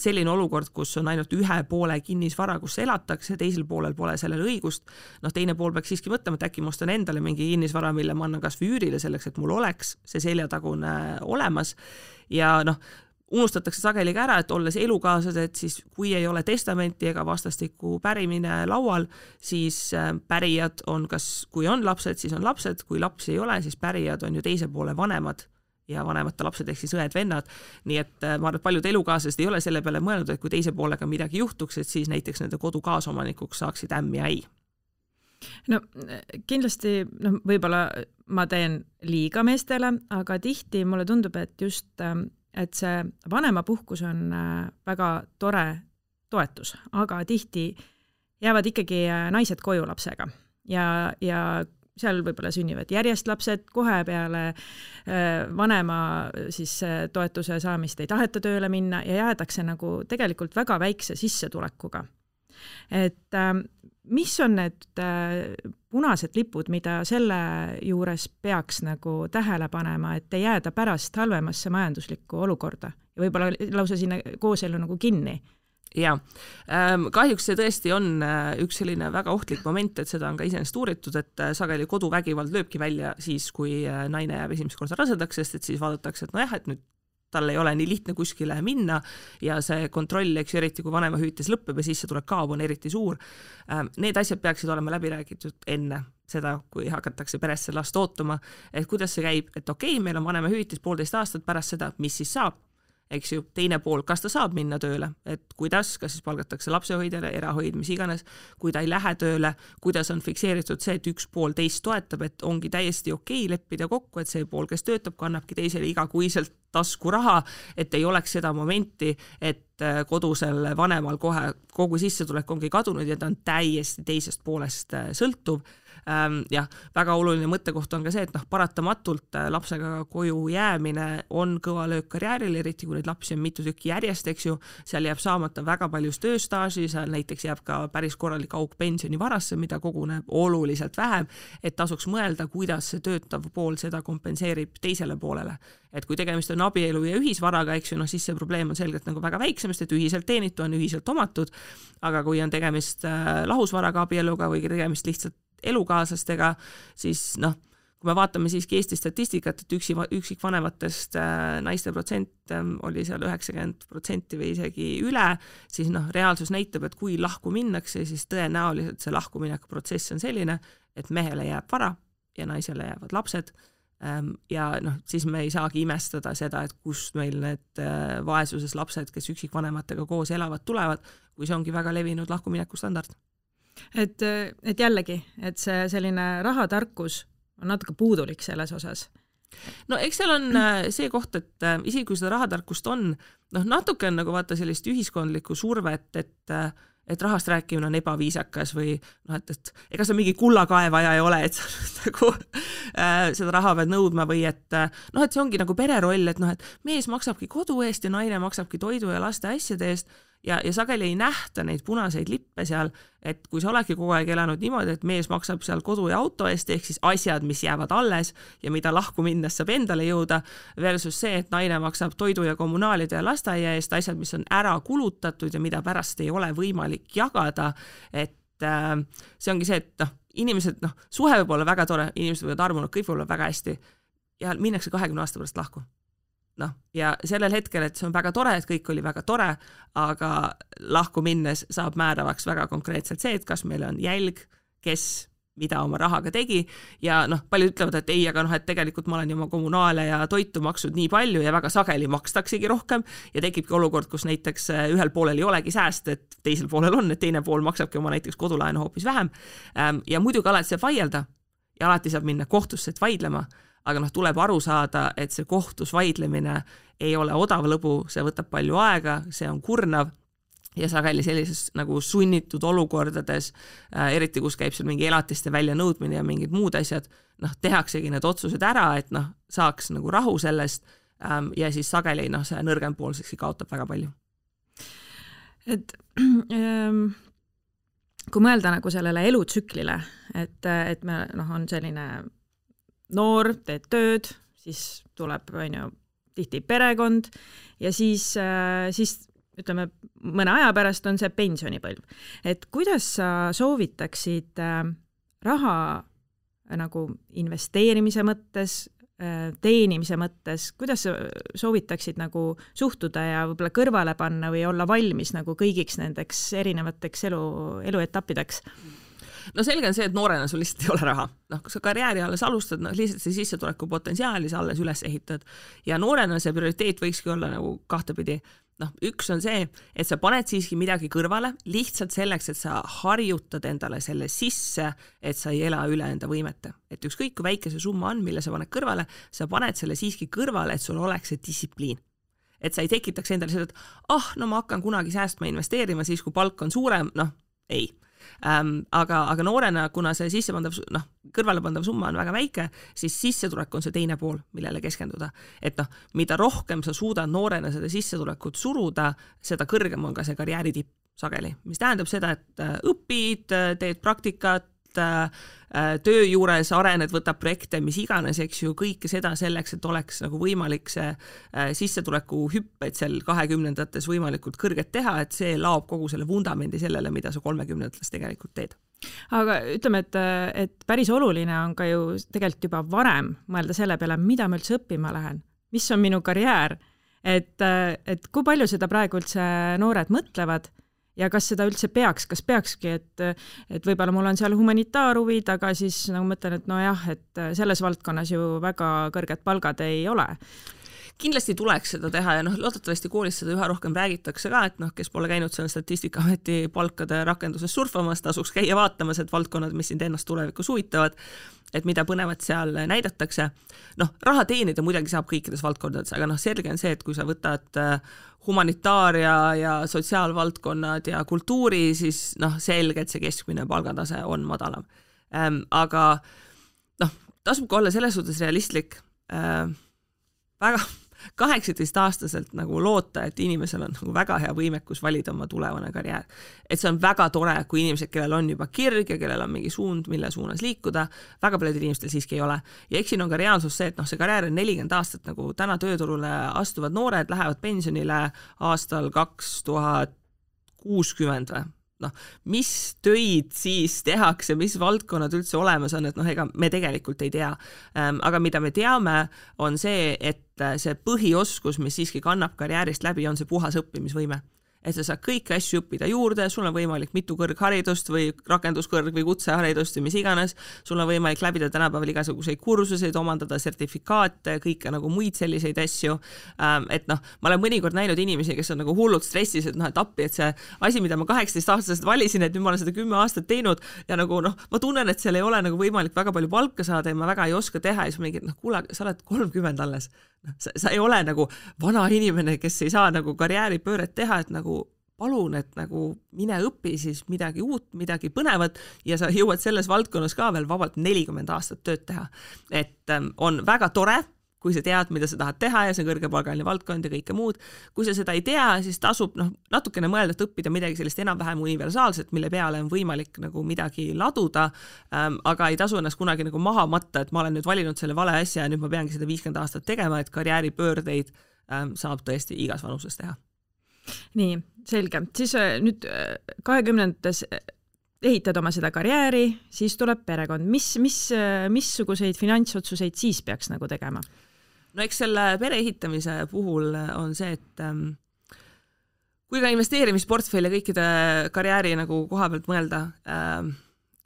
[SPEAKER 3] Selline olukord, kus on ainult ühe poole kinnisvara, kus elatakse, teisel poolel pole sellele õigust, teine pool peaks siiski mõtlema, et äkki ma ostan endale mingi kinnisvara, mille ma annan kas või üürile selleks, et mul oleks see seljatagune olemas ja unustatakse sageli ka ära, et olles elukaaslased, siis kui ei ole testamenti ega vastastikku pärimine laual, siis pärijad on kui on lapsed, siis on lapsed, kui lapsi ei ole, siis pärijad on ju teise poole vanemad ja vanemate lapsed ehk siis õed-vennad. Nii et ma arvan, et paljud elukaaslased ei ole selle peale mõelnud, et kui teise poolega midagi juhtuks, et siis näiteks nende kodu kaasomanikuks saaksid ämm ja äi.
[SPEAKER 2] Kindlasti võib-olla ma teen liiga meestele, aga tihti mulle tundub, et see vanemapuhkus on väga tore toetus, aga tihti jäävad ikkagi naised koju lapsega ja seal võib-olla sünnivad järjest lapsed, kohe peale vanema siis toetuse saamist ei taheta tööle minna ja jäädakse tegelikult väga väikse sissetulekuga. Et mis on need punased lipud, mida selle juures peaks tähele panema, et ei jääda pärast halvemasse majanduslikku olukorda ja võib-olla lausa sinna kooselu kinni?
[SPEAKER 3] Ja, kahjuks see tõesti on üks selline väga ohtlik moment, et seda on ka iseenesest uuritud, et sageli koduvägivald lööbki välja siis, kui naine jääb esimest korda rasedaks, sest et siis vaadatakse, et et nüüd tal ei ole nii lihtne kuskile minna ja see kontroll, eks eriti kui vanemahüvitis lõppeb ja sissetulek kaob, on eriti suur. Need asjad peaksid olema läbi räägitud enne seda, kui hakatakse peresse last ootuma, et kuidas see käib, et okei, meil on vanemahüvitis 1,5 aastat pärast seda, mis siis saab, eks ju, teine pool, kas ta saab minna tööle, et kuidas, kas siis palgatakse lapsehoidjale, erahoid, mis iganes, kui ta ei lähe tööle, kuidas on fikseeritud see, et üks pool teist toetab, et ongi täiesti okei leppida kokku, et see pool, kes töötab, kannabki teisele igakuiselt tasku raha, et ei oleks seda momenti, et kodusel vanemal kohe kogu sissetulek ongi kadunud ja ta on täiesti teisest poolest sõltuv. Ja väga oluline mõttekoht on ka see, et paratamatult lapsega koju jäämine on kõva löök karjääril, eriti kui neid lapsi on mitu tükki järjest, eks ju, seal jääb saamata väga palju tööstaaži, seal näiteks jääb ka päris korralik auk pensionivarasse, mida koguneb oluliselt vähem, et tasuks mõelda, kuidas see töötav pool seda kompenseerib teisele poolele. Et kui tegemist on abielu ja ühisvaraga, eks ju, siis see probleem on selgelt väga väiksemast, et ühiselt teenitu on ühiselt omatud, aga kui on tegemist lahusvaraga abieluga või tegemist lihtsalt elukaaslastega, siis kui me vaatame siiski Eesti statistikat, et üksikvanematest naiste protsent oli seal 90% või isegi üle, siis reaalsus näitab, et kui lahku minnakse, siis tõenäoliselt see lahkumineku protsess on selline, et mehele jääb vara ja naisele jäävad lapsed ja siis me ei saagi imestada seda, et kust meil need vaesuses lapsed, kes üksikvanematega koos elavad, tulevad, kui see ongi väga levinud lahkumineku standard.
[SPEAKER 2] Et jällegi, et see selline rahatarkus on natuke puudulik selles osas.
[SPEAKER 3] Eks seal on see koht, et isegi kui seda rahatarkust on, natuke on vaata sellist ühiskondlikku survet, et rahast rääkimine on ebaviisakas või et ega sa mingi kullakaevaja ei ole, et sa seda raha pead nõudma või et see ongi pereroll, et mees maksabki kodu eest ja naine maksabki toidu ja laste asjade eest ja sageli ei nähta neid punaseid lippe seal, et kui sa oledki kogu aeg elanud niimoodi, et mees maksab seal kodu ja auto eest, ehk siis asjad, mis jäävad alles ja mida lahku minnes saab endale jõuda, versus see, et naine maksab toidu ja kommunaalide ja lasteaia eest, asjad, mis on ära kulutatud ja mida pärast ei ole võimalik jagada, et see ongi see, et inimesed, suhe võib olla väga tore, inimesed võivad armunud, kõik võib olla väga hästi ja minnakse 20 aasta pärast lahku. Ja sellel hetkel, et see on väga tore, et kõik oli väga tore, aga lahku minnes saab määravaks väga konkreetselt see, et kas meil on jälg, kes mida oma rahaga tegi ja paljud ütlevad, et ei, aga et tegelikult ma olen oma kommunaale ja toitu maksud nii palju ja väga sageli makstaksegi rohkem ja tekibki olukord, kus näiteks ühel poolel ei olegi sääst, et teisel poolel on, et teine pool maksabki oma näiteks kodulaenu hoopis vähem ja muidugi alati saab vaielda ja alati saab minna kohtusse, et vaidlema, aga tuleb aru saada, et see kohtus vaidlemine ei ole odav lõbu, see võtab palju aega, see on kurnav ja sageli sellises sunnitud olukordades, eriti kus käib seal mingi elatiste väljanõudmine ja mingid muud asjad, tehaksegi need otsused ära, et saaks rahu sellest ja siis sageli see nõrgem pool kaotab väga palju.
[SPEAKER 2] et kui mõelda nagu sellele elutsüklile, et me on selline noor, teed tööd, siis tuleb tihti perekond ja siis ütleme, mõne aja pärast on see pensionipõlv. Et kuidas sa soovitaksid raha nagu investeerimise mõttes, teenimise mõttes, kuidas sa soovitaksid nagu suhtuda ja võib-olla kõrvale panna või olla valmis nagu kõigiks nendeks erinevateks eluetappideks?
[SPEAKER 3] No selge on see, et noorena sul lihtsalt ei ole raha. Kui sa karjääri alles alustad, lihtsalt see sissetuleku potentsiaali sa alles üles ehitad. Ja noorena see prioriteet võikski olla nagu kahtepidi. Üks on see, et sa paned siiski midagi kõrvale lihtsalt selleks, et sa harjutad endale selle sisse, et sa ei ela üle enda võimete. Et ükskõik kui väike see summa on, mille sa paned kõrvale, sa paned selle siiski kõrvale, et sul oleks see distsipliin. Et sa ei tekitaks endale seda, et ma hakkan kunagi säästma investeerima siis, kui palk on suurem, ei. Aga noorena, kuna see kõrvalepandav summa on väga väike, siis sissetulek on see teine pool, millele keskenduda. Et mida rohkem sa suudad noorena seda sissetulekut suruda, seda kõrgem on ka see karjääri tipp sageli. Mis tähendab seda, et õpid, teed praktikat, töö juures arened, võtab projekte, mis iganes, eks ju, kõike seda selleks, et oleks nagu võimalik see sissetuleku hüpped seal 20-ndates võimalikult kõrget teha, et see laob kogu selle vundamendi sellele, mida sa 30-ndates tegelikult teed.
[SPEAKER 2] Aga ütleme, et päris oluline on ka ju tegelikult juba varem mõelda selle peale, mida ma üldse õppima lähen, mis on minu karjäär, et kui palju seda praegu üldse noored mõtlevad ja kas seda üldse kas peakski, et võib-olla mul on seal humanitaarhuvid, aga siis nagu mõtlen, et et selles valdkonnas ju väga kõrged palgad ei ole.
[SPEAKER 3] Kindlasti tuleks seda teha ja loodetavasti koolis seda üha rohkem räägitakse ka, et kes pole käinud seal Statistikaameti palkade rakenduses surfamas, tasuks käia vaatamas, et valdkonnad, mis sind ennast tulevikus huvitavad, et mida põnevat seal näidatakse. Raha teenida muidugi saab kõikides valdkondades, aga selge on see, et kui sa võtad humanitaaria ja sotsiaalvaldkonnad ja kultuuri, siis selge, et see keskmine palgatase on madalam. Aga tasub ka olla selles suhtes realistlik. Väga 18-aastaselt nagu loota, et inimesel on nagu väga hea võimekus valida oma tulevane karjäär. Et see on väga tore, kui inimesed, kellel on juba kirg ja kellel on mingi suund, mille suunas liikuda, väga paljudel inimestel siiski ei ole. Ja eks siin on ka reaalsus see, et see karjäär on 40 aastat, nagu täna tööturule astuvad noored lähevad pensionile aastal 2060 või. Mis töid siis tehakse, mis valdkonnad üldse olemas on, et ega me tegelikult ei tea. Aga mida me teame, on see, et see põhioskus, mis siiski kannab karjäärist läbi, on see puhas õppimisvõime. Et sa saad kõiki asju õppida juurde, sul on võimalik mitu kõrgharidust või rakenduskõrg või kutseharidust või mis iganes, sul on võimalik läbida tänapäeval igasuguseid kursuseid, omandada sertifikaate, kõike nagu muid selliseid asju. Et ma olen mõnikord näinud inimesi, kes on nagu hullult stressis, et appi, et see asi, mida ma 18-aastaselt valisin, et nüüd ma olen seda 10 aastat teinud ja nagu ma tunnen, et seal ei ole nagu võimalik väga palju palka saada ja ma väga ei oska teha ja siis mingi, kuule, sa oled 30 alles. Sa ei ole nagu vana inimene, kes ei saa nagu karjääripööret teha, et nagu palun, et nagu mine õpi siis midagi uut, midagi põnevat ja sa jõuad selles valdkonnas ka veel vabalt 40 aastat tööd teha. Et on väga tore, kui sa tead, mida sa tahad teha ja see on kõrgepalgaline valdkond ja kõike muud. Kui sa seda ei tea, siis tasub natukene mõelda, et õppida midagi sellist enam-vähem universaalset, mille peale on võimalik nagu midagi laduda, aga ei tasu ennast kunagi nagu maha matta, et ma olen nüüd valinud selle vale asja ja nüüd ma peangi seda 50 aastat tegema, et karjääripöördeid saab tõesti igas vanuses teha.
[SPEAKER 2] Nii, selge. Siis nüüd 20-ndates ehitad oma seda karjääri, siis tuleb perekond. Missuguseid finantsotsuseid siis peaks nagu tegema?
[SPEAKER 3] No eks selle pere ehitamise puhul on see, et kui ka investeerimisportfelli ja kõikide karjääri nagu koha pealt mõelda,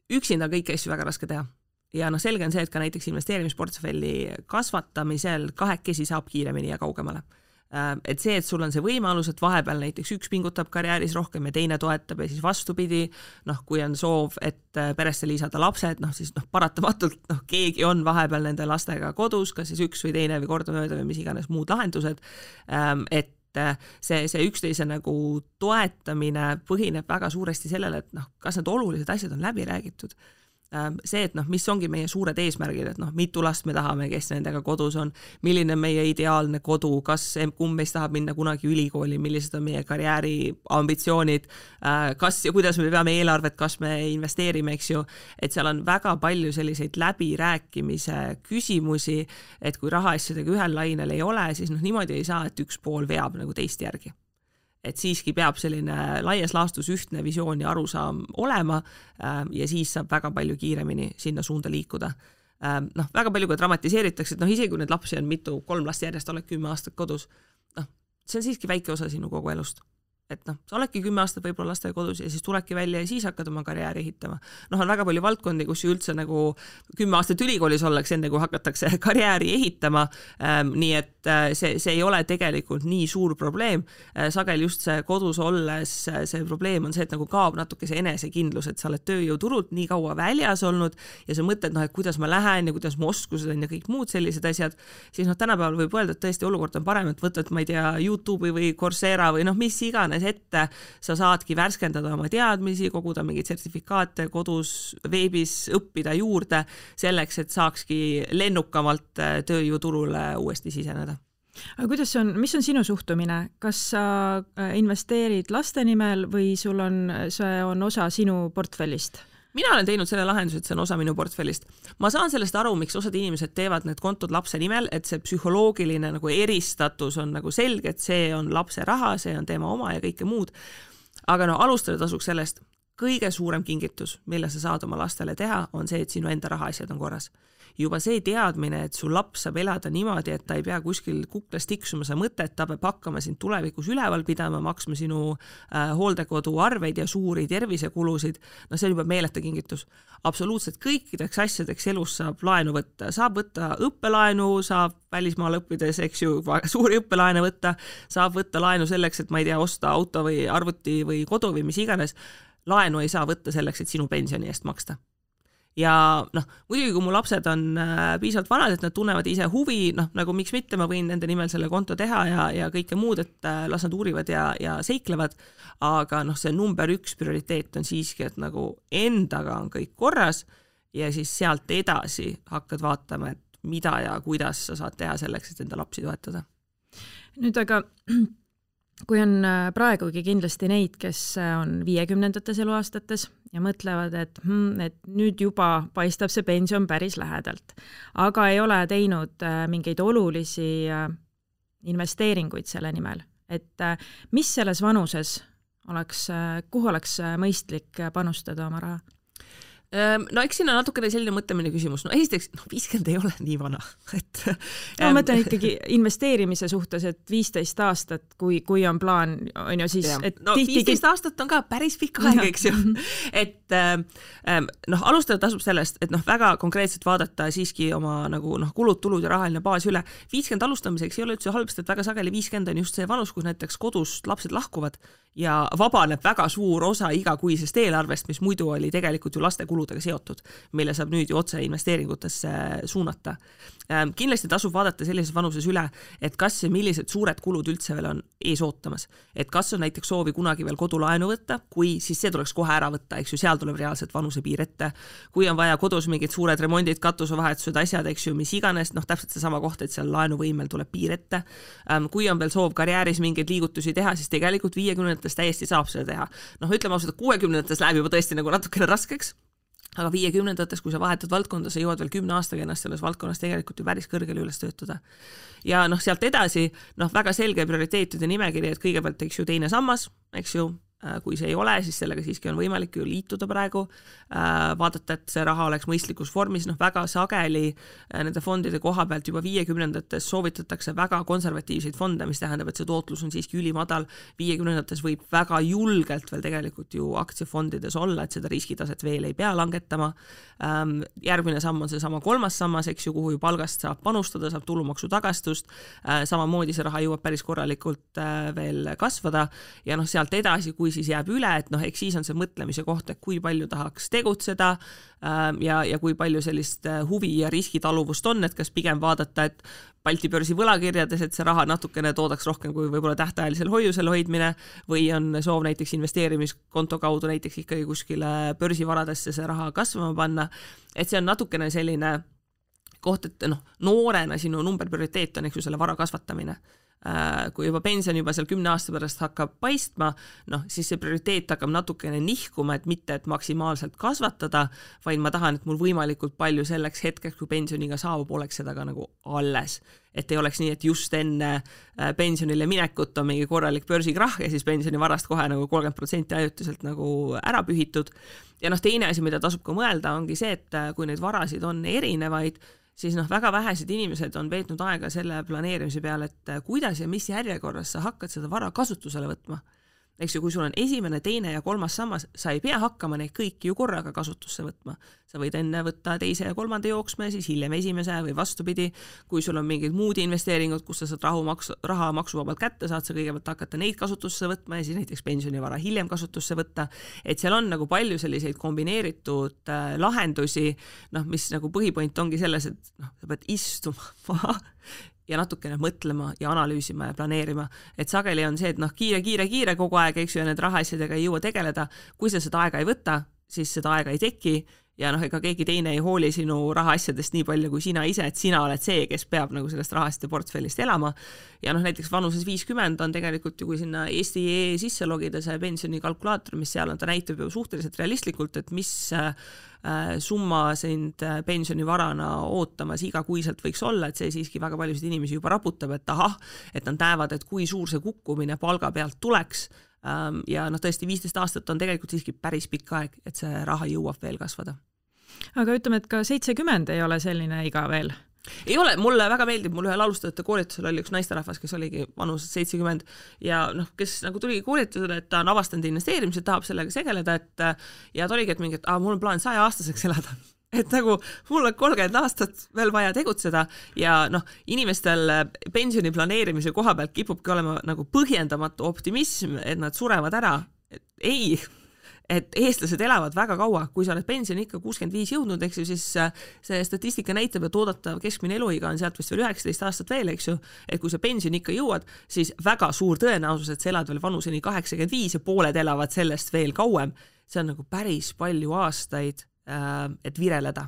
[SPEAKER 3] üksinda kõiki asju väga raske teha. Ja selge on see, et ka näiteks investeerimisportfelli kasvatamisel kahekesi saab kiiremini ja kaugemale. Et see, et sul on see võimalus, et vahepeal näiteks üks pingutab karjääris rohkem ja teine toetab ja siis vastupidi, kui on soov, et peresse liisada lapsed, siis paratamatult keegi on vahepeal nende lastega kodus, kas siis üks või teine või kordamööda või mis iganes muud lahendused, et see üksteise nagu toetamine põhineb väga suuresti sellele, et kas need olulised asjad on läbi räägitud. see, et noh, mis ongi meie suured eesmärgid, et noh, mitu last me tahame, kes nendega kodus on, milline meie ideaalne kodu, kumb meist tahab minna kunagi ülikooli, millised on meie karjääri ambitsioonid, kas ja kuidas me peame eelarvet, kas me investeerime, eks ju, et seal on väga palju selliseid läbirääkimise küsimusi, et kui rahaasjadega ühel lainel ei ole, siis noh, niimoodi ei saa, et üks pool veab nagu teist järgi. Et siiski peab selline laias laastus ühtne visioon ja arusaam olema ja siis saab väga palju kiiremini sinna suunda liikuda. Noh, väga palju ka dramatiseeritakse, et noh, isegi kui need lapsi on 3 last järjest, oled 10 aastat kodus, noh, see on siiski väike osa sinu kogu elust. Et noh, sa oledki 10 aastat võib-olla lastega kodus ja siis tulebki välja ja siis hakkad oma karjääri ehitama. Noh, on väga palju valdkondi, kus üldse nagu 10 aastat ülikoolis ollakse enne, kui hakatakse karjääri ehitama, nii et see ei ole tegelikult nii suur probleem. Sagel just see kodus olles see probleem on see, et nagu kaob natuke see enesekindlus, et sa oled tööjõuturult nii kaua väljas olnud ja sa mõtled, noh, et kuidas ma lähen ja kuidas ma oskused on ja kõik muud sellised asjad, siis noh, tänapäeval võib öelda, et tõesti olukord on parem, et võtad, ma ei tea, YouTube'i või Coursera või noh, mis iganes ette, sa saadki värskendada oma teadmisi, koguda mingeid sertifikaate kodus, veebis õppida juurde selleks, et saakski lennukamalt tööjõuturule uuesti siseneda.
[SPEAKER 2] Aga kuidas on, mis on sinu suhtumine? Kas sa investeerid laste nimel või see on osa sinu portfellist?
[SPEAKER 3] Mina olen teinud selle lahenduse, et see on osa minu portfellist. Ma saan sellest aru, miks osad inimesed teevad need kontod lapse nimel, et see psühholoogiline nagu eristatus on nagu selge, et see on lapse raha, see on tema oma ja kõike muud. Aga no alustada tasuks sellest, kõige suurem kingitus, mille sa saad oma lastele teha, on see, et sinu enda rahaasjad on korras. Juba see teadmine, et su laps saab elada niimoodi, et ta ei pea kuskil kuklas tiksuma sa mõtet, ta peab hakkama sind tulevikus üleval pidama, maksma sinu hooldekodu arveid ja suuri tervisekulusid, no see on juba meeleta kingitus. Absoluutselt kõikideks asjadeks elus saab laenu võtta. Saab võtta õppelaenu, saab välismaal õppides, eks ju, suuri õppelaene võtta, saab võtta laenu selleks, et ma ei tea, osta auto või arvuti või kodu või mis iganes. Laenu ei saa võtta selleks, et sinu pensioni eest maksta. Ja noh, muidugi kui mu lapsed on piisavalt vanad, et nad tunnevad ise huvi, noh, nagu miks mitte, ma võin nende nimel selle konto teha ja kõike muud, et las nad uurivad ja seiklevad, aga noh, see number 1 prioriteet on siiski, et nagu endaga on kõik korras ja siis sealt edasi hakkad vaatama, et mida ja kuidas sa saad teha selleks, et enda lapsi toetada.
[SPEAKER 2] Nüüd aga kui on praegugi kindlasti neid, kes on 50-ndates eluaastates ja mõtlevad, et nüüd juba paistab see pension päris lähedalt, aga ei ole teinud mingeid olulisi investeeringuid selle nimel. Et mis selles vanuses kuhu oleks mõistlik panustada oma raha?
[SPEAKER 3] No eks siin on natukene selline mõtlemine küsimus. No esiteks, 50 ei ole nii vana.
[SPEAKER 2] Ma mõtlen ikkagi investeerimise suhtes, et 15 aastat, kui on plaan, on ju siis... Et
[SPEAKER 3] no 15 aastat on ka päris pikk aeg, eks ju. Et alustada tasub sellest, et väga konkreetselt vaadata siiski oma kulud, tulud ja rahaline baas üle. 50 alustamiseks ei ole üldse halbast, et väga sageli 50 on just see vanus, kus näiteks kodust lapsed lahkuvad ja vabaneb väga suur osa igakuisest eelarvest, mis muidu oli tegelikult ju laste kuludega seotud, mille saab nüüd ju otse investeeringutesse suunata. Kindlasti tasub vaadata sellises vanuses üle, et kas ja millised suured kulud üldse veel on ees ootamas. Et kas on näiteks soovi kunagi veel kodulaenu võtta, kui siis see tuleks kohe ära võtta, eks ju, seal tuleb reaalselt vanusepiir ette. Kui on vaja kodus mingid suured remondid, katusevahetused, asjad, eks ju, mis iganes, täpselt see sama koht, et seal laenuvõimel tuleb piir ette. Kui on veel soov karjääris mingeid liigutusi teha, siis tegelikult 50-ndates täiesti saab seda teha. Ütleme ausalt, 60-ndates läheb juba tõesti natukene raskeks. Aga 50-ndates, kui sa vahetad valdkonda, sa jõuad veel 10 aastaga ennast selles valdkonnas tegelikult ju päris kõrgele üles töötada. Ja sealt edasi, väga selge prioriteetide nimekiri, et kõigepealt, eks ju, teine sammas, eks ju, kui see ei ole, siis sellega siiski on võimalik ju liituda praegu, vaadata, et see raha oleks mõistlikus vormis, väga sageli nende fondide koha pealt juba 50-ndates soovitatakse väga konservatiivseid fonde, mis tähendab, et see tootlus on siiski ülimadal. 50-ndates võib väga julgelt veel tegelikult ju aktsiafondides olla, et seda riskitaset veel ei pea langetama. Järgmine samm on see sama 3. sammas, eks ju, kuhu ju palgast saab panustada, saab tulumaksu tagastust, samamoodi see raha jõuab päris korralikult veel kasvada ja sealt edasi, kui siis jääb üle, et noh, eks siis on see mõtlemise koht, et kui palju tahaks tegutseda ja kui palju sellist huvi ja riskitaluvust on, et kas pigem vaadata, et Balti börsi võlakirjades, et see raha natukene toodaks rohkem kui võib-olla tähtajalisel hoiusel hoidmine või on soov näiteks investeerimiskonto kaudu näiteks ikkagi kuskile börsivaradesse see raha kasvama panna, et see on natukene selline koht, et noh, noorena sinu numberprioriteet on, eks ju, selle vara kasvatamine. Kui juba pension juba seal 10 aasta pärast hakkab paistma, noh, siis see prioriteet hakkab natukene nihkuma, et mitte, et maksimaalselt kasvatada, vaid ma tahan, et mul võimalikult palju selleks hetkeks, kui pensioniga saabub, oleks seda ka nagu alles. Et ei oleks nii, et just enne pensionile minekut on mingi korralik börsikrahh ja siis pensionivarast kohe nagu 30% ajutiselt nagu ära pühitud. Ja noh, teine asi, mida tasub ka mõelda, ongi see, et kui neid varasid on erinevaid, siis noh, väga vähesed inimesed on veetnud aega selle planeerimise peale, et kuidas ja mis järjekorras sa hakkad seda vara kasutusele võtma. Eks ju, kui sul on esimene, teine ja kolmas sammas, sa ei pea hakkama neid kõiki ju korraga kasutusse võtma. Sa võid enne võtta teise ja kolmanda jooksme, siis hiljem esimese või vastupidi. Kui sul on mingid muud investeeringud, kus sa saad raha maksuvabalt kätte, saad sa kõigepealt hakata neid kasutusse võtma ja siis näiteks pensionivara hiljem kasutusse võtta. Et seal on nagu palju selliseid kombineeritud lahendusi, noh, mis nagu põhipoint ongi selles, et noh, sa pead istuma ja natukene mõtlema ja analüüsima ja planeerima. Et sageli on see, et noh, kiire kogu aeg, eks ju, ja need rahaasjadega ei jõua tegeleda. Kui sa seda aega ei võta, siis seda aega ei teki ja noh, ega keegi teine ei hooli sinu rahaasjadest nii palju kui sina ise, et sina oled see, kes peab nagu sellest rahasite portfellist elama. Ja noh, näiteks vanuses 50 on tegelikult ju, kui sinna Eesti sisse logida see pensionikalkulaator, mis seal on, ta näitab ju suhteliselt realistlikult, et mis summa sind pensionivarana ootamas igakuiselt võiks olla, et see siiski väga paljusid inimesi juba raputab, et ahah, et nad näevad, et kui suur see kukkumine palga pealt tuleks ja noh, tõesti 15 aastat on tegelikult siiski päris pikk aeg, et see raha jõuab veel kasvada.
[SPEAKER 2] Aga ütleme, et ka 70 ei ole selline iga veel?
[SPEAKER 3] Ei ole, mulle väga meeldib, mul ühel alustajate koolitusel oli üks naisterahvas, kes oligi vanuses 70 ja noh, kes nagu tuligi koolitusele, et ta on avastanud investeerimised, tahab sellega segeleda, et ja ta oligi, et mingi, et mul on plaan 100-aastaseks elada. Et nagu mul on 30 aastat veel vaja tegutseda ja noh, inimestel pensioni planeerimise koha pealt kipubki olema nagu põhjendamatu optimism, et nad surevad ära. Ei, et eestlased elavad väga kaua, kui sa oled pensioni ikka 65 jõudnud, eks ju, siis see statistika näitab, et oodatav keskmine eluiga on sealt vist veel 19 aastat veel, eks ju, et kui sa pensioni ikka jõuad, siis väga suur tõenäosus, et sa elad veel vanuseni 85 ja pooled elavad sellest veel kauem. See on nagu päris palju aastaid, et vireleda.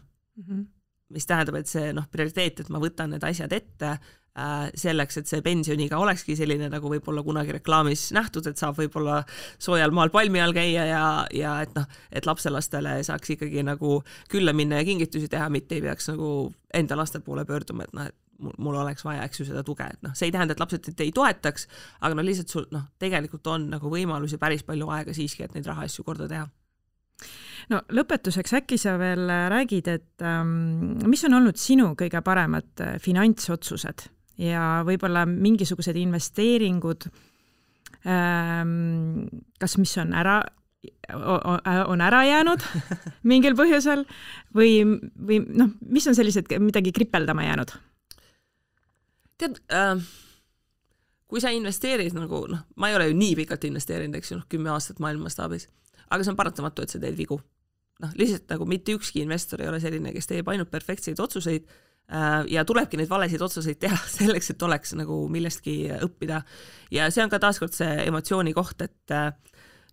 [SPEAKER 3] Mis tähendab, et see noh, prioriteet, et ma võtan need asjad ette selleks, et see pensioniga olekski selline, nagu võib-olla kunagi reklaamis nähtud, et saab võib-olla soojal maal palmi all käia ja et noh, et lapselastele saaks ikkagi nagu külla minna ja kingitusi teha, mitte ei peaks nagu enda laste poole pöörduma, et noh, et mul oleks vaja, eks ju, seda tuge, et noh, see ei tähenda, et lapsed ei toetaks, aga no lihtsalt sul noh, tegelikult on nagu võimalusi päris palju aega siiski, et neid rahaasju korda teha.
[SPEAKER 2] No lõpetuseks äkki sa veel räägid, et mis on olnud sinu kõige paremad finantsotsused ja võib-olla mingisugused investeeringud, kas mis on ära jäänud mingil põhjusel või noh, mis on sellised midagi kripeldama jäänud?
[SPEAKER 3] Tead, kui sa investeerid nagu, noh, ma ei ole ju nii pikalt investeerinud, eks ju, 10 aastat maailmastaabis, aga see on paratamatu, et sa teed vigu. Noh, lihtsalt nagu mitte ükski investor ei ole selline, kes teeb ainult perfektseid otsuseid ja tulebki neid valesid otsuseid teha selleks, et oleks nagu millestki õppida. Ja see on ka taaskord see emotsiooni koht, et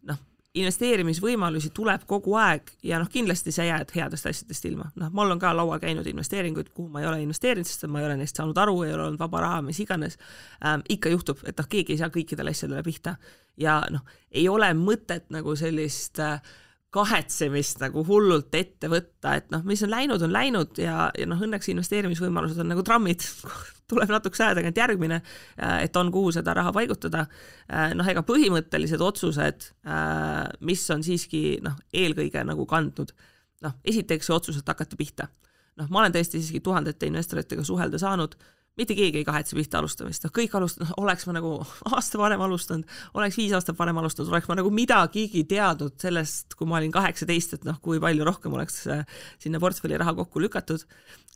[SPEAKER 3] noh, investeerimisvõimalusi tuleb kogu aeg ja noh, kindlasti sa jääd headest asjadest ilma. Noh, mul on ka laual käinud investeeringuid, kuhu ma ei ole investeerinud, sest ma ei ole neist saanud aru, ei ole olnud vaba raha, mis iganes. Ikka juhtub, et noh, keegi ei saa kõikidele asjadele pihta ja noh, ei ole mõtet nagu sellist kahetsemist nagu hullult ette võtta, et noh, mis on läinud ja noh, õnneks investeerimisvõimalused on nagu trammid, tuleb natuke aja tagant järgmine, et on kuhu seda raha paigutada. Noh, ega põhimõttelised otsused, mis on siiski noh, eelkõige nagu kandnud. Noh, esiteks otsused hakata pihta. Noh, ma olen tõesti siiski tuhandete investoritega suhelda saanud, mitte keegi ei kahetse pihta alustamist. Kõik alustanud, oleks ma nagu aasta varem alustanud, oleks 5 aastat varem alustanud, oleks ma nagu midagigi teadnud sellest, kui ma olin 18, et noh, kui palju rohkem oleks sinna portfelli raha kokku lükatud.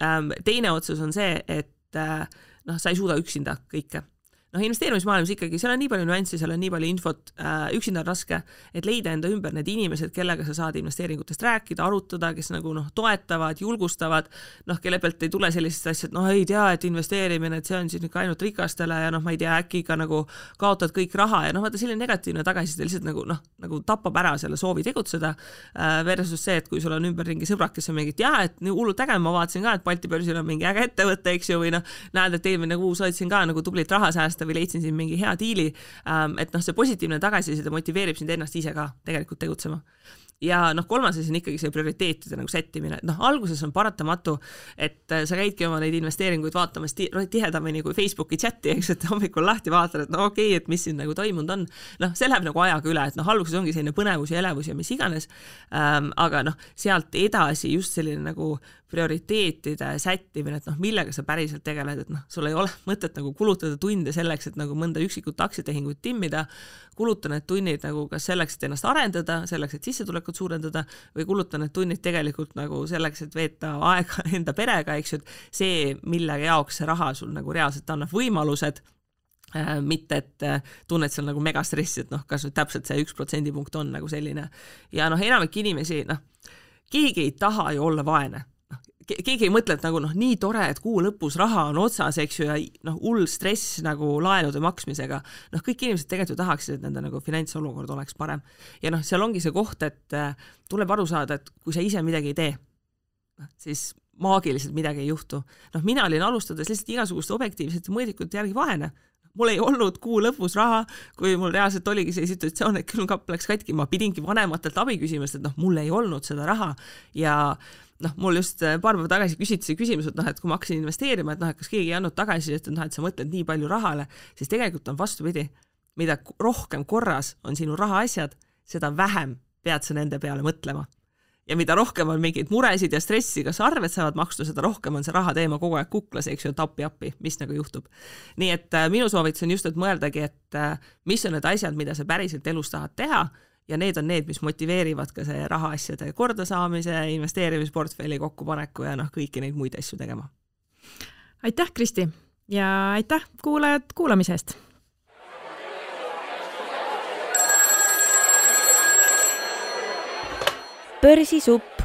[SPEAKER 3] Teine otsus on see, et noh, sa ei suuda üksinda kõike. investeerimismaailmas ikkagi, seal on nii palju nüanssi, seal on nii palju infot, üksinda on raske, et leida enda ümber need inimesed, kellega sa saad investeeringutest rääkida, arutada, kes nagu toetavad, julgustavad, kelle pealt ei tule sellised asjad, ei tea, et investeerimine, et see on siin ikka ainult rikastele ja ma ei tea, äkki ikka nagu kaotad kõik raha ja vaata selline negatiivne tagasiside lihtsalt nagu tapab ära selle soovi tegutseda versus see, et kui sul on ümberringi sõbrad, kes on mingid, et nii hullult äge, ma vaatasin ka, et Balti börsil on mingi äge ettevõte, eks ju, või näed, et eelmine kuus hoidsin ka nagu tublit raha säästa või leidsin siin mingi hea diili, et see positiivne tagasiside motiveerib sind ennast ise ka tegelikult tegutsema. Ja kolmas asi on ikkagi see prioriteetide nagu sättimine, et alguses on paratamatu, et sa käidki oma neid investeeringuid vaatamas tihedamini kui Facebooki chati, eks, et hommikul lahti vaatad, et okei, et mis siin nagu toimunud on. See läheb nagu ajaga üle, et alguses ongi selline põnevus ja elevus ja mis iganes, aga sealt edasi just selline nagu prioriteetide sättimine, et millega sa päriselt tegeled, et sul ei ole mõtet nagu kulutada tunde selleks, et nagu mõnda üksikut aktsiatehingut timmida, kuluta need tunnid nagu kas selleks, et ennast arendada, selleks, et sissetulekut suurendada või kuluta need tunnid tegelikult nagu selleks, et veeta aega enda perega, eks ju, et see, mille jaoks see raha sul nagu reaalselt annab võimalused, mitte et tunned seal nagu megastressi, et kas nüüd täpselt see 1% punkt on nagu selline. Ja enamik inimesi, keegi ei taha ju olla vaene. Keegi ei mõtle, et nagu nii tore, et kuu lõpus raha on otsas, eks ju, ja hull stress nagu laenude maksmisega. Kõik inimesed tegelikult tahaksid, et nende nagu finantsolukord oleks parem. Ja seal ongi see koht, et tuleb aru saada, et kui sa ise midagi ei tee, siis maagiliselt midagi ei juhtu. Mina olin alustades lihtsalt igasuguste objektiivsete mõõdikute järgi vaene. Mul ei olnud kuu lõpus raha, kui mul reaalselt oligi see situatsioon, et külmkapp läks katki, ma pidingi vanematelt abi küsimast, et mul ei olnud seda raha ja mul just paar päeva tagasi küsiti see küsimus, et kui ma hakkasin investeerima, et kas keegi ei andnud tagasi, et sa mõtled nii palju rahale, siis tegelikult on vastupidi. Mida rohkem korras on sinu rahaasjad, seda vähem pead sa nende peale mõtlema. Ja mida rohkem on mingeid muresid ja stressi, kas arved saavad maksta, seda rohkem on see raha teema kogu aeg kuklas, eks ju, appi, mis nagu juhtub. Nii et minu soovitus on just, et mõeldagi, et mis on need asjad, mida sa päriselt elus tahad teha, ja need on need, mis motiveerivad ka see rahaasjade kordasaamise, investeerimisportfelli kokkupaneku ja kõiki neid muid asju tegema.
[SPEAKER 2] Aitäh, Kristi, ja aitäh kuulajad kuulamisest!
[SPEAKER 1] Börsisupp